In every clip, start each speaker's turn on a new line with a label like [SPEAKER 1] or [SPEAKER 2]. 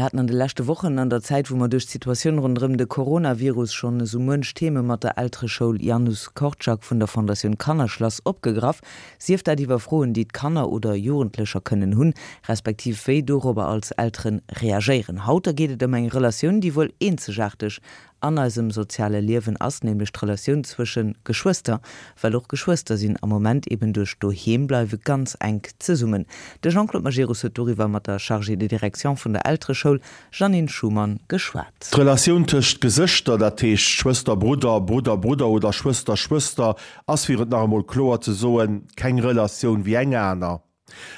[SPEAKER 1] Mir haten an de leschte Wochen, an der Zäit wou mer duerch d'Situatioun ronderëm de Coronavirus schonn esou muench Theme mat der Eltereschoul Janusz Korczak vun der Fondatioun Kannerschlass opgegraff, sief dat iwwer Froen déi d'Kanner oder Jugendlecher kënnen hunn, respektiv wéi dorobber als Elteren reagéieren. Haut da geet et ëm eng Relatioun déi wuel eenzegaarteg an eisem soziale Liewen ass, nämlech d'Relatioun zwësche Geschwëster, well och Geschwëster sinn am Moment eben duerch d'Doheembleiwe ganz enk zesummen. De Jean-Claude Majerus huet doriwwer mat der Chargée de direction vun der Eltereschoul, Jeannine Schumann, geschwat.
[SPEAKER 2] D'Relatioun tëscht Gesëschter, dat heescht Schwëster-Brudder, Brudder-Brudder oder Schwëster-Schwëster, ass, fir et nach emol kloer ze soen, keng Relatioun wéi eng aner.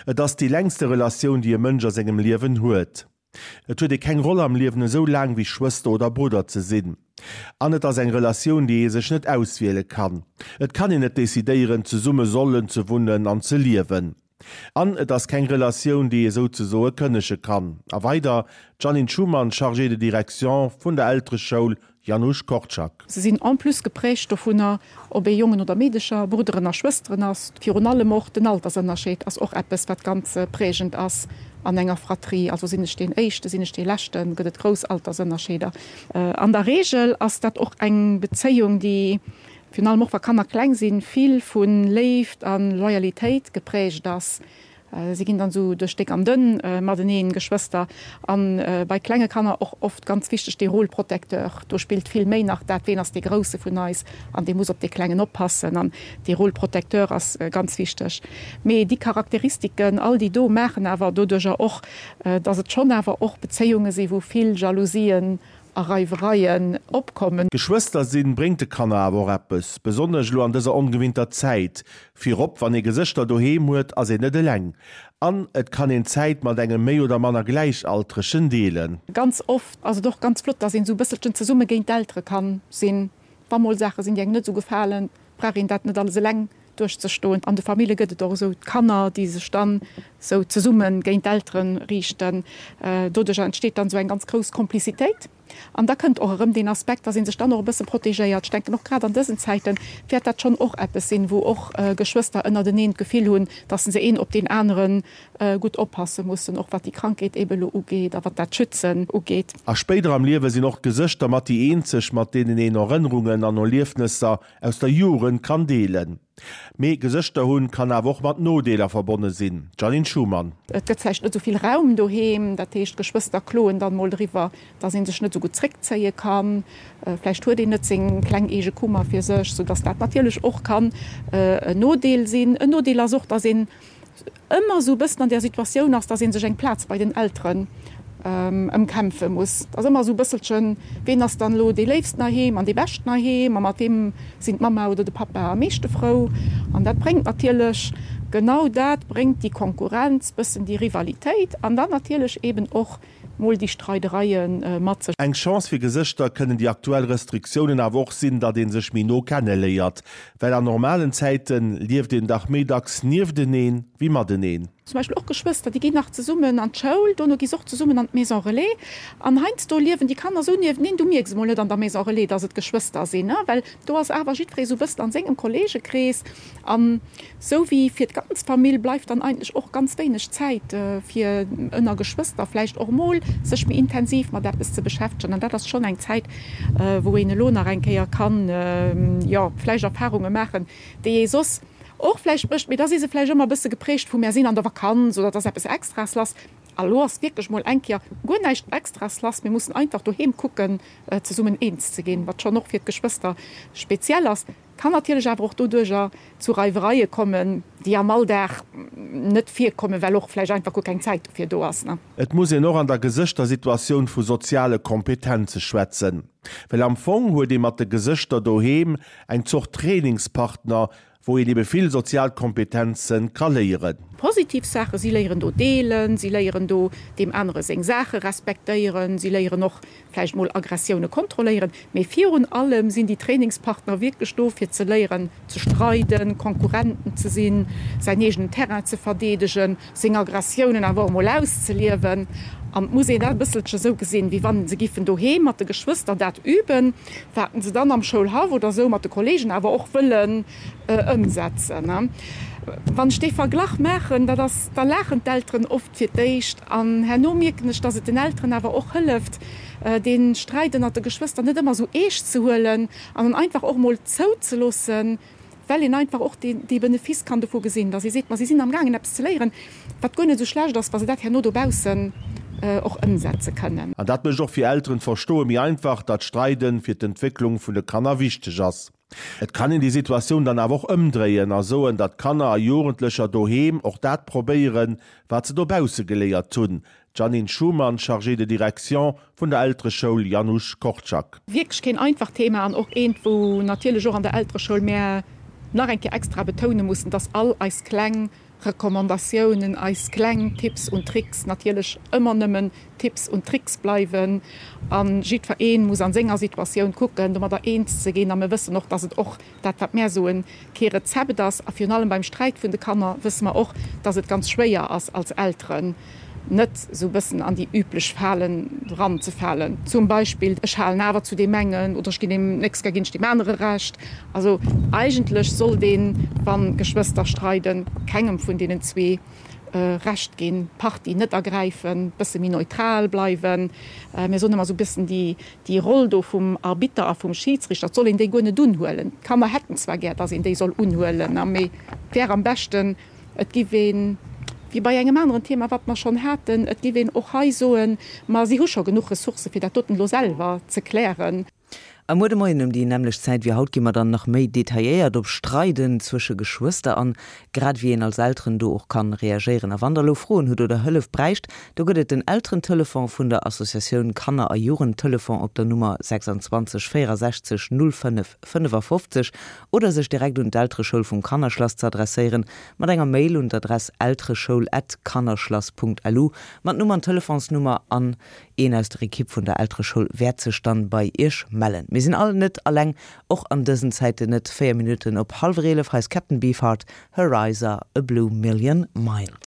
[SPEAKER 2] Et ass déi längste Relatioun, déi e Mënsch a sengem Liewen huet. Et huet ee keng Roll am Liewen esou laang wéi Schwëster oder Brudder ze sinn. An et ass eng Relatioun, déi ee sech net auswiele kann. Et kann een net decidéieren, zesumme sollen ze wunnen an ze liewen. An et ass keng Relatioun, déi ee souzesoe kënnege kann. A weider, d'Jeannine Schumann, Chargée de direction vun der Eltereschoul Janusz Korczak.
[SPEAKER 3] Se sinn en plus geprägt dovunner, ob ee Jongen oder Meedecher, Brudderen a Schwësteren ass. Virun allem och den Altersënnerscheed ass och eppes, wat ganz prägend ass an enger Fratrie. Also sinn ech deen Éischten, sinn ech dee Leschten, gëtt et grouss Altersënnerscheeder. An der Reegel ass dat och eng Bezéiung, déi, virun allem och wa Kanner kleng sinn, vill vu Léift a Loyalitéit geprägt ass. Si ginn dann esou duerch déck an dënn mateneen, Geschwëster. A bei klenge Kanner och oft ganz wichteg dee Rôle protecteur. Do spillt vill méi nach dat, ween ass dee Grousse vun eis an dee muss op dee Klengen oppassen. An dee Rôle protecteur ass ganz wichteg. Mee déi Charakteristiken, all déi do, maachen awer doduerjer och, dass et schonn awer och Bezéiunge si wou vill Jalousien a Reiwereien opkommen.
[SPEAKER 2] Geschwëster sinn bréngt de Kanner awer och eppes, besonnesch elo an dëser ongewinnter Zäit. Virop wann ee Gesëschter doheem huet, ass een net eleng an et kann een Zäit mat engem méi oder manner Gläichaltregen deelen.
[SPEAKER 3] Ganz oft ass et och ganz flott, dass een esou e bësselchen zesumme géint d'Eltere kann sinn. Wa mol Saache sinn, déi engem net esou gefalen, brauch een dat net alles eleng duerchzestoen. An de Famille gëtt et och esou d'Kanner, déi sech dann esou zesumme géint d'Eltere riichten. Doduercher entsteet dann esou eng ganz grouss Komplizitéit. An da kënnt och erëm deen Aspekt, dass ee sech dann och e bësse protegéiert. Ech denken, och grad an dësen Zäite wäert dat schonn och eppes sinn, wou och Geschwëster ënnerteneen d'Gefill hunn, dass se een op deen anere gutt oppasse mussen, och wat déi Krankheet eebe elo ugeet a wat dat Schützen ugeet.
[SPEAKER 2] A spéider am Liewe sinn och d'Gesëschter mat déi eenzeg, mat deenen een Erënnerungen an Erliefnesser aus der Jugend kann deelen. Mee Gesëschter hunn kann awer och mat Nodeeler verbonne sinn. Jeannine Schumann.
[SPEAKER 3] Et gëtt vläicht net esou vill Raum doheem, dat heescht d'Geschwëster kloen dann mol driwwer, dass ee sech net esou gutt zréckzéie kann. Vläicht huet een net seng kleng eege Kummer fir sech, sou dass dat natierlech och kann en Nodeel sinn. En Nodeel ass och, dass een ëmmer esou e bëssen an där Situatioun ass, dass ee sech eng Plaz bei den Elteren ëmkämpfe muss. Et ass ëmmer esou e bësselchen, ween ass dann elo dee Léifsten heiheem an dee Beschten heiheem a mat weem sinn d'Mamma oder de Pappa am meeschte frou. An dat bréngt natierlech, genau dat bréngt déi Konkurrenz, bëssen déi Rivalitéit an dann natierlech eeben och mol déi Streidereie mat sech.
[SPEAKER 2] Eng Chance fir Gesëschter kënnen déi aktuell Restriktiounen awer och sinn, datt ee sech méi no kenne léiert. Well an normalen Zäite lieft een dach méi dacks niefteneen wéi mateneen.
[SPEAKER 3] Zum Beispill och Geschwëster, déi ginn nach zesummen an d'Schoul, dono gi se och zesummen an d'Maison Relais. An heiansdo liewen déi Kanner esou niefteneen, du mierks emol net an der Maison Relais, datt et Geschwëster sinn, well do ass awer jiddweree esou e bëssen an sengem Kolleegekrees. An sou wéi fir d'ganz Famill bleift dann eigentlech och ganz wéineg Zäit fir ënner Geschwëster vläicht och mol sech méi intensiv mat eppes ze beschäftegen. An dat ass schonn eng Zäit, wou een elo nach eng Kéier kann, jo, vläicht Erfarunge maachen, déi ee soss och vläicht mécht, mee da si se vläicht ëmmer e bësse geprägt vu mär sinn an der Vakanz oder et ass eppes Extraes lass. A lo ass wierklech mol eng Kéier guer näischt Extraes lass, mir mussen einfach doheem kucken zesummen eens ze ginn, wat schonn och fir d'Geschwëster speziell ass. Kann natierlech awer och doduercher zu Reiwereie kommen, déi am Alldag net virkommen, well och vläicht einfach guer keng Zäit dofir do ass.
[SPEAKER 2] Et muss een och an der Gesëschtersituatioun vu soziale Kompetenze schwätzen, well am Fong huet ee mat de Gesëschter doheem eng Zort Trainingspartner, wou een ebe vill sozial Kompetenze ka léieren.
[SPEAKER 3] Positiv Saachen, si léieren do deelen, si léieren do deem anere seng Saache respektéieren, si léieren och vläicht mol Aggressioune kontrolléieren, mee virun allem sinn déi Trainingspartner wierklech do fir ze léieren ze streiden, Konkurrenten ze sinn, säin eegenen Terrain ze verdeedegen, seng Aggressiounen awer och mol auszeliewen. An et muss een dat e bësselche sou gesinn, wéi wann se giffen doheem mat de Geschwëster dat üben, wat se dann am Schoulhaff oder sou mat de Kollegen awer och wëllen ëmsetzen. Wann ech dee Verglach maachen, dat ass, da laachen d'Elteren oft fir d'éischt an herno mierken ech, dass et den Elteren awer och hëlleft, dee Sträit ënnert de Geschwëster net ëmmer esou eescht ze huelen an en einfach och emol zouzeloossen, well een einfach och dee Benefice kann dovu gesinn, dass ee seet, ma si sinn amgaangen eppes ze léieren, wat guer net esou schlecht ass, wa se dat herno dobaussen och ëmsetze kënnen.
[SPEAKER 2] An dat mécht och fir Elteren d'Verstoe méi einfach, datt Streiden fir d'Entwécklung vun de Kanner wichteg ass. Et kann een déi Situatioun dann awer och ëmdréien a soen, datt Kanner a Jugendlecher doheem och dat probéieren, wat se dobausse geléiert hunn, D'Jeannine Schumann, Chargée de direction vun der Eltereschoul Janusz Korczak.
[SPEAKER 3] Wierklech keen einfacht Thema an och eent, wou natierlech och an der Eltereschoul mär nach eng Kéier extra betoune mussen, dass all eis kleng Recommandatiounen, eis kleng Tipps und Tricks natierlech ëmmer nëmmen Tipps und Tricks bleiwen a jiddweree muss a senger Situatioun kucken, domadder eens ze ginn. A mir wëssen och, dass et och dat, wat mär soen, kee Rezept ass. A virun allem beim Sträit vun de Kanner wësse mer och, dass et ganz schwéier ass als Elteren, net esou e bëssen an déi üblech Falen eranzefalen. Zum Beispill, ech halen awer zu deem engen oder ech ginn deem, nächst Kéier ginn ech deem anere Recht. Also eigentlech sollt een, wa Geschwëster streiden, kengem vun deenen zwee Recht ginn, d'Partie net ergräifen, bësse méi neutral bleiwen. Mir soen ëmmer esou e bëssen déi, déi Roll do vum Arbitter a vum Schidsrichter, et soll een déi guer net unhuelen. D'Kanner hätten zwar gär, datt een déi soll unhuelen, mee et wär am beschten, et giff een, wéi bei engem aneren Thema, wat mer schonn haten, et giff een och hei soen, ma si hu scho genuch Ressourcë fir dat doten elo selwer ze klären.
[SPEAKER 1] A muer de Moien ëm déi nämmlecht Zäit wéi haut gi mer dann nach méi detailléiert op Streiden zwësche Geschwëster an, grad ewéi een als Elteren do och kann reagéieren. A wann der elo Froen hutt oder Hëllef bräicht, do gëtt et den Elterentelefon vun der Associatioun Kanner a Jugendtelefon op der Nummer 26 64 05 55 oder sech direkt un d'Eltereschoul vum Kannerschlass ze adresséieren mat enger Mail un d'Adress eltereschoul at kannerschlass.lu mat Numm an Telefonsnummer an Een aus der Ekipp vun der Eltereschoul wäert sech dann bei iech mellen. Mir sinn all net alleng, och an dësen Zäiten net. 4 Minutten op hallwer 11, hei ass Captain Beefheart, Her Eyes Are A Blue Million Miles.